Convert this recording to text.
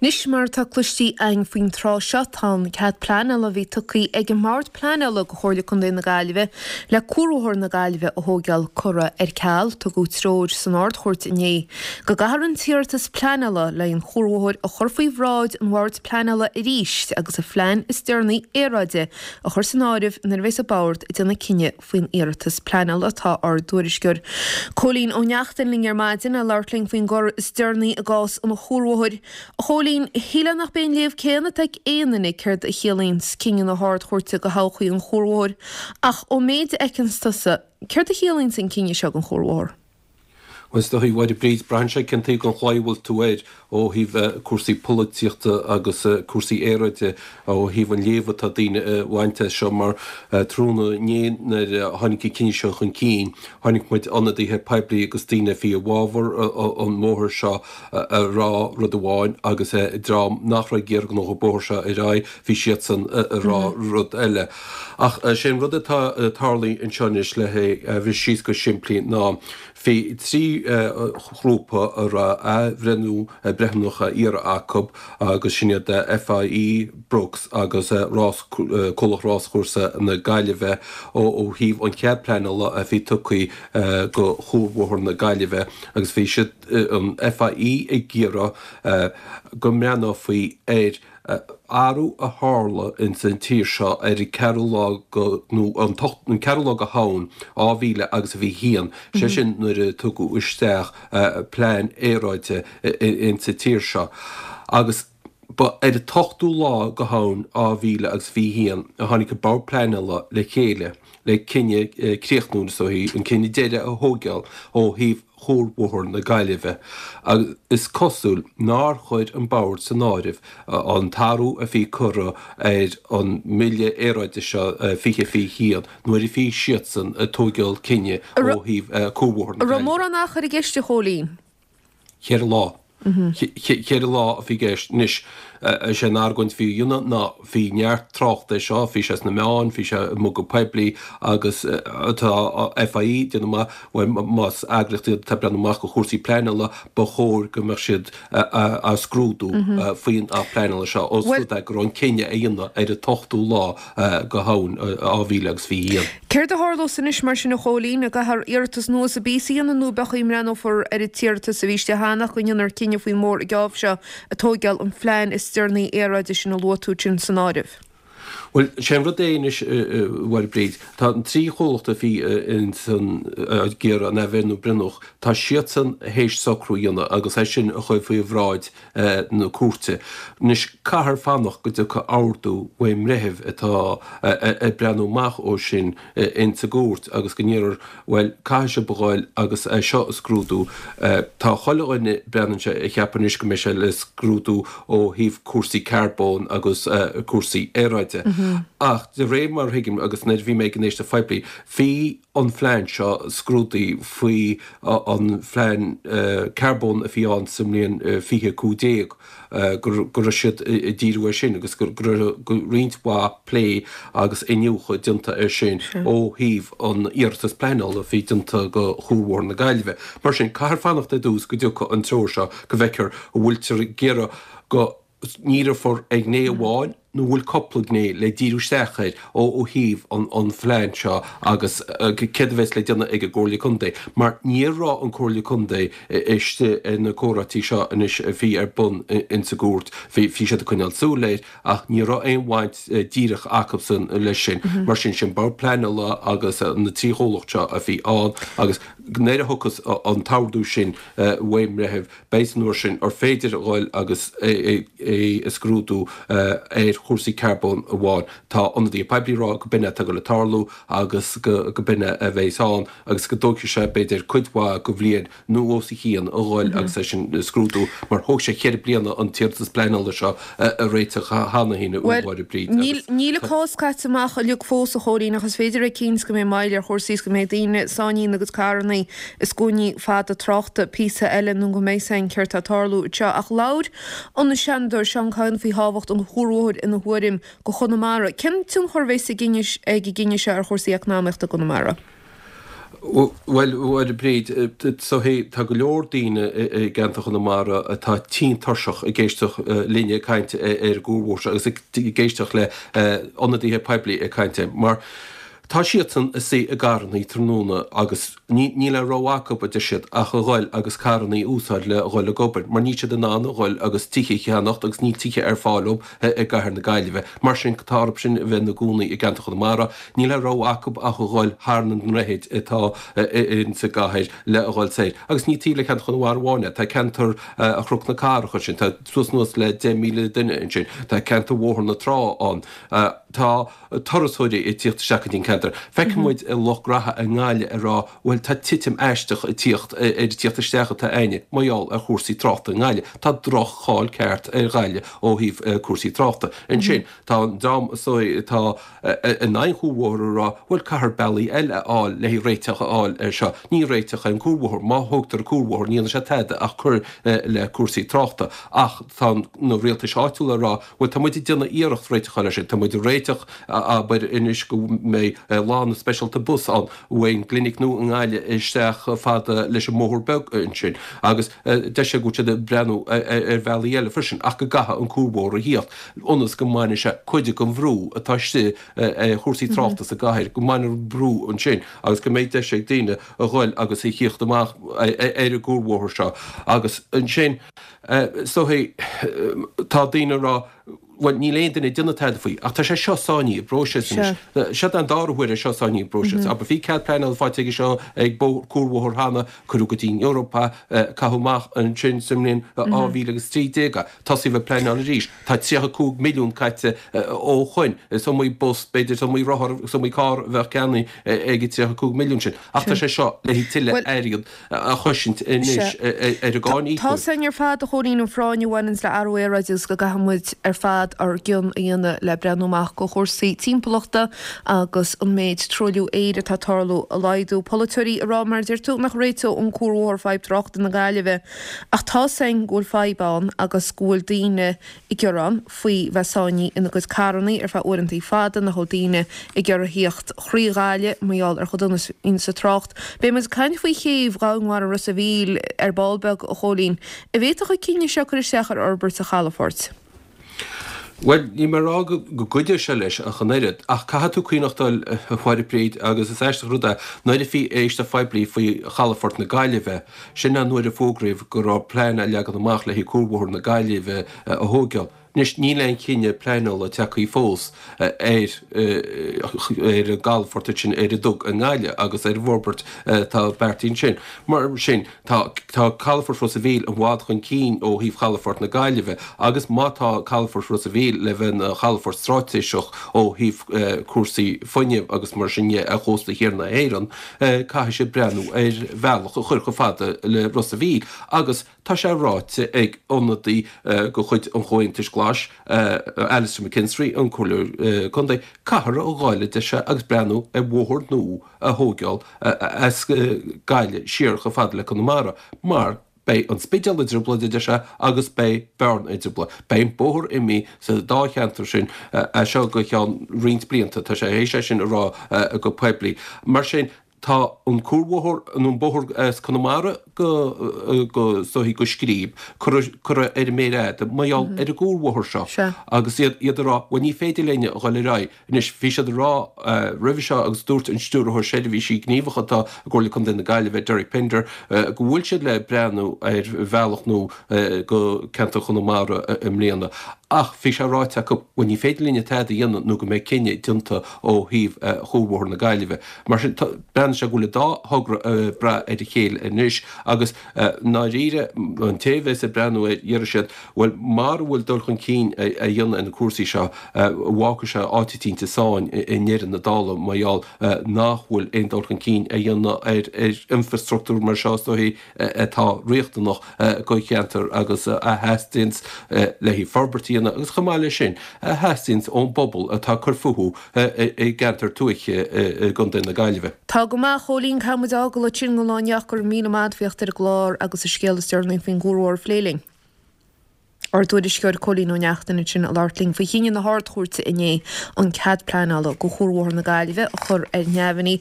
Anois, mar atá cloistí againn faoin tráth seo, tá an cead pleanála a bhí tugtha ag an mBord Pleanála go Chomhairle Contae na Gaillimhe le Cuarbhóthar na Gaillimhe a thóigeáil curtha ar ceal. Tugadh treoir san Ard-Chúirt inné go gcaithfear an t-iarratas pleanála le haghaidh an chuarbhóthair a chur faoi bhráid an Bhoird Pleanála arís agus an phlean is deireanaí aeráide a chur san áireamh nuair a bheas an Bord ag déanamh cinneadh faoin iarratas pleanála. Tá ár dtuairisceoir Cóilín Ó Neachtain linn ar maidin le labhairt linn faoin gcor is deireanaí i gcás an chuarbhóthair. A Chóilín, shílfeá nach b'é an léamh céanna atá ag aon duine céard a chiallaíonns cinneadh na hArd-Chúirte do thodhchaí an chuarbhóthair, ach ón méid a fheiceanns tusa, céard a chiallaíonns an cinneadh seo don chuarbhóthar? Bhuel, is dóigh, a Mháire Bríd, braitheann sé cén taobh den chlaí a bhfuil tú air ó thaobh cúrsaí polaitíochta agus cúrsaí aeráide, ó thaobh an léamh atá daoine a bhaint as seo mar tráthnóna inné nuair a tháinig an cinneadh seo chun cinn, chonaic muid ionadaithe poiblí agus daoine a bhí i bhfabhar an bhóthair seo ag rá rud amháin agus dream nach raibh ag iarraidh go ngabhfadh an bóthar seo ar aghaidh, bhí siadsan ag rá rud eile. Ach sé an rud atá tarlaithe anseo anois le hé a bhriseadh síos go simplí ná bhí 3 ghrúpa a raibh athbhreithniú breithiúnach á iarraidh acu agus sin iad FIE, Brooks agus Rás, Comhlacht Ráschúrsa na Gaillimhe ó thaobh an chead pleanála a bhí tugtha go Chuarbhóthar na Gaillimhe agus bhí siad, an FIE ag iarraidh go mbreathnófaí ar athrú a tharla ins an tír seo ar an ceathrú lá go, nó an t-ocht, an ceathrú lá go Shamhain 2000 agus a 21, sé sin nuair a tugadh isteach plean aeráide ins an tír seo. Agus ba ar an t-ochtú lá go Shamhain 2000 agus 21 a tháinig an Bord Pleanála le chéile le cinneadh críochnúil, is dóichí, an cinneadh deiridh a thóigeáil ó thaobh Chuarbhóthar na Gaillimhe agus is cosúil nár chuir an Bord san áireamh an t-athrú a bhí curtha ar an mBille Aeráide seo 2021 nuair a bhí siadsan ag tóigeáil cinnidh ó thaobh Cuarbhóthar na An raibh Gaillimhe. mórán achair i gceist, a Chóilín? Cheithre lá. Cheithre lá a bhí i gceist. Anois, is é an argóint a bhí á dhéanamh ná bhí neart tráchta air seo, bhí sé sna meáin, bhí sé i muga poiblí agus tá FIE ag déanamh amach, bhuel, más eagraíocht iad atá ag breathnú amach do chúrsaí pleanála, ba chóir go mbeadh siad á scrúdú faoin Acht Pleanála seo, ós rud é go raibh an cinneadh á dhéanamh ar an t-ochtú lá go Shamhain 2021. Céard a tharlós anois mar sin a Chóilín? An gcaithfear iarratas nua sa bpíosa a dhéanamh nó pé chaoi a mbreathnófar ar an t-iarratas a bhí istigh cheana ach go ndéanfar cinneadh faoin mbóthar an geábh seo ag tóigeáil an phlean is deireanaí aeráide sin a luaigh tú sin san áireamh? Bhuel, sé an rud é anois, a Mháire Bríd, tá an trí chomhlacht a bhí ins an, ag iarraidh an athbhreithniú breithiúnach, tá siadsan théis socrú a dhéanamh agus é sin a chur faoi bhráid na cúirte. Anois, caithfear fanacht go dtiocfaidh ordú ón mbreitheamh atá ag breathnú amach ó sin ins an gcúirt agus go ndéarfar, bhuel, caithfidh sibh a ghoil agus é seo a scrúdú. Tá chuile dhuine, breathnaíonn sé, ag ceapadh anois go mbeidh sé le scrúdú ó thaobh cúrsaí carbóin agus cúrsaí aeráide. Ach de réir mar a thuigim, agus nuair a bhí mé ag an éisteacht phoiblí, bhí an phlean seo scrúdaithe faoi an phlean carbóin a bhí ann sa mbliain 2015, go raibh siad ag díriú air sin agus go raibh roinnt mhaith plé agus iniúchadh déanta air sin ó thaobh an iarratas pleanála a bhí déanta go Chuarbhóthar na Gaillimhe. Mar sin, caithfear fanacht ar dtús go dtiocfaidh an treoir seo go bhfeicfear an bhfuiltear ag iarraidh go ndíreofar ar ghné amháin nó an bhfuil cúpla gné le díriú isteach air ó thaobh an phlean seo agus céard a bheas le déanamh ag an gComhairle Contae mar ní raibh an Comhairle Contae istigh ar na comhráití seo anois a bhí ar bun ins an gcúirt. Bhí siad ag coinneáil súil air ach ní raibh aon bhaint díreach acusan leis sin. Mar sin, sin Bord Pleanála agus na trí chomhlacht seo a bhí ann agus nuair a thiocfas an t-ordú sin ón mbreitheamh Beidh san uair sin ar féidir a dhul agus é a scrúdú ar chúrsaí carbóin amháin. Tá ionadaithe poiblí ag rá go b'in é atá ag dul ag tarlú agus go b'in é a bheas ann agus go dtógfaidh sé b'fhéidir cuid mhaith de bhliain nó os a chionn a dhul agus é sin a scrúdú mar thóg sé cheithre bliana an t-iarratas pleanála seo a réiteach cheana féin a Mháire Bríd agus. Níl an cás caite amach uilig fós a Chóilín ach is féidir a bheith cinnte go mbeidh moill ar chúrsaí is go mbeidh daoine sáinnithe ina gcuid carrannaí i scuainí fada tráchta píosa eile nó go mbeidh a fhios againn céard tá ag tarlú anseo. Ach labhair an Seanadóir Seán Kyne faoi thábhacht an chuarbhóthair ina thuairim go Chonamara. Cén tionchar a bheas ag an gcinneadh seo ar chúrsaí eacnamaíochta i gConamara? Bhuel, a Bhríd, so tá go leor daoine i gceantar Chonamara atá tinn tuirseach ag éisteacht linne ag caint ar an gcuarbhóthar seo agus ag éisteacht le ionadaithe poiblí ag caint air mar tá siadsan ag suí i gcarrannaí tráthnóna agus níl aon rogha acu, a deir siad, ach a ghoil agus carrannaí a úsáid le dhul ag obair mar níl siad in ann a ghoil agus tithe a cheannacht agus níl tithe ar fáil dóibh i gcathair na Gaillimhe. Mar sin tá orthu sin a bheith ina gcónaí i gceantar Chonamara. Níl aon rogha acu ach a ghoil thar na ndroichid atá insa gcathair le a ghoil soir. Agus ní taobh le ceantar Chonamara amháin é, tá ceantar Chnoc na Cathrach ansin, tá suas anuas le 10,000 duine ansin, tá ceantar Bhóthar na Trá ann, tá turasóirí ag tíocht isteach go dtí an ceantar. Feiceann muid i lucht graithe i nGaillimh ag rá bhuel tá titim aisteach ag tíocht ar an tíocht isteach atá a'inne mar gheall ar chúrsaí tráchta i nGaillimh. Tá droch-cháil ceart ar Ghaillimh ó thaobh cúrsaí tráchta. Ansin tá an dream atá in aghaidh an chuarbhóthair ag rá, bhuel, caithfear bealaí eile a fháil le haghaidh réiteach a fháil air seo. Ní réiteach é an cuarbhóthar. Má thógtar an cuarbhóthar, ní dhéanfaidh sé tada ach cur le cúrsaí tráchta. Ach tá na rialtais áitiúla ag rá, bhuel, tá muid ag déanamh iarracht réiteach a fháil air sin. Tá muid ag réiteach, abair, anois go mbeidh lána speisialta bus ann ón gclinic nua i nGaillimh isteach chomh fada leis an mbóthar beag ansin. Agus deir sé go bhfuil siad ag breathnú ar bhealaí eile freisin ach go gcaithfidh an cuarbhóthar a thíocht. ionas go mbainfidh sé cuid den bhrú atá istigh ar chúrsaí tráchta sa gcathair, go mbainfear an brú ansin agus go mbeidh deis ag daoine a ghoil agus a thíocht amach ar an gcuarbhóthar seo. Agus ansin, is dóigh, tá daoine ag rá, bhuel, níl aon duine ag déanamh tada faoi, ach tá sé seo sáinnithe i bpróiseas anois. Seo an dara huair é seo sáinnithe i bpróiseas. Abair, bhí cead pleanála faighte aige seo ag cuarbhóthar cheana, cuireadh go dtí an Eoraip é, caitheadh amach ansin sa mbliain 2013 é. Tosaíodh ag pleanáil arís. Tá 35 milliún caite ó shoin. Is iomaí bus, b'fhéidir, is iomaí rothar, is iomaí carr a bheadh ceannaithe ag an 35 milliún sin. Ach tá sé seo le haghaidh tuilleadh airgead a chosaint anois ar an gcáin íocóir. Tá sin ar fad, a Chóilín, an phráinn a bhaineanns le athrú aeráide agus go gcaithfidh muid ar fad ár gcion a dhéanamh le breathnú amach go chúrsaí timpeallachta agus an méid truailliú aeir atá ag tarlú a laghdú. Polaiteoirí ag rá, mar a deir tú, nach réiteodh an cuarbhóthar fadhb tráchta na Gaillimhe. Ach tá's againn go bhfuil fadhb ann agus go bhfuil daoine ag gearán faoi bheith sáinnithe ina gcuid carrannaí ar feadh uaireantaí fada, nach bhfuil daoine ag iarraidh thíocht thrí Ghaillimh mar gheall ar chomh dona is a bhíonns an trácht. Beidh muid ag caint faoi chéibh dhomhainmhara Ros a' Mhíl ar ball beag, a Chóilín. An bhféadfadh an cinneadh seo cur isteach ar fhorbairt an chalafoirt? Bhuel, níl mé ag rá go gcuideoidh sé leis ach an oiread, ach caithfidh tú cuimhneachtáil, a Mháire Bríd, agus is aisteach an rud é, nuair a bhí éisteacht phoiblí faoi chalafort na Gaillimhe, sin an uair a fógraíodh go raibh plean á leagan amach le haghaidh cuarbhóthar na Gaillimhe a thóigeáil. Anois, níl aon chinneadh pleanála tagtha fós ar ar an gcalafort ansin ar an Dug i nGaillimh agus ar an bhforbairt atá beartaithe ansin. Mar sin, Tá tá Calafort Ros a' Mhíl i bhfad chun cinn ó thaobh Chalafort na Gaillimhe agus má tá Calafort Ros a' Mhíl le bheith ina chalafort straitéiseach ó thaobh cúrsaí fuinnimh agus mar sin dhe ar chósta thiar na hÉireann, caithfidh siad breathnú ar bhealach a chur chomh fada le Ros a' Mhíl agus tá sé ráite ag ionadaí de chuid an Chomhaontais Ghlais, Alastair McKinstry, an Comhairleoir Contae, caithfear a ghoil a deir sé agus breathnú ar bhóthar nua a thóigeáil as Gaillimh siar chomh fada le Conamara mar beidh an Spidéal i dtrioblóid, a deir sé, agus beidh Bearna i dtrioblóid. Beidh an bóthar imithe sa dá cheantar sin as seo go ceann roinnt blianta, tá sé théis é sin a rá go poiblí. Mar sin, tá an cuarbhóthar, nó an bóthar as Conamara go, go, is dóichí go Scríb, curtha ar an méar fhada mar gheall ar an gcuarbhóthar seo agus iad ag rá, bhuel ní féidir linn a dhul ar aghaidh. Anois, bhí siad ag rá roimhe seo agus dúirt an Stiúrthóir Seirbhísí Gníomhacha atá i gComhairle Contae na Gaillimhe, Derek Pender, go bhfuil siad le breathnú ar bhealach nua go ceantar Chonamara i mbliana. Ach bhí sé ráite acu, bhuel ní féidir linne tada a dhéanamh nó go mbeidh cinneadh déanta ó thaobh Chuarbhóthar na Gaillimhe. Mar sin, breathnaíonn sé go bhfuil an dá thogra ag brath ar a chéile anois agus i ndáiríre, an té a bheas ag breathnú air, déarfaidh siad, Bhuel, mara bhfuil dul chun cinn á dhéanamh ar na cúrsaí seo, fágfaidh sé áit eicínt i sáinn i ndeireadh na dála mar gheall nach bhfuil aon dul chun cinn á dhéanamh ar infreastruchtúr mar seo is dóichí atá riachtanach do cheantar agus a theastaíonns le haghaidh forbairt a dhéanamh agus chomh maith leis sin a theastaíonns ón bpobal atá ag cur fúthu i gceantar tuaithe i gContae na Gaillimhe. Tá go maith, a Chóilín, caithfidh muid a fhágáil ansin don lá inniu ach go raibh míle maith agat as theacht ar an gclár agus an scéal is deireanaí faoin gcuarbhóthar a phlé linn. Ár dtuairisceoir Cóilín Ó Neachtain ansin ag labhairt linn faoi chinneadh na hArd-Chúirte inné an cead pleanála do Chuarbhóthar na Gaillimhe a chur ar neamhní.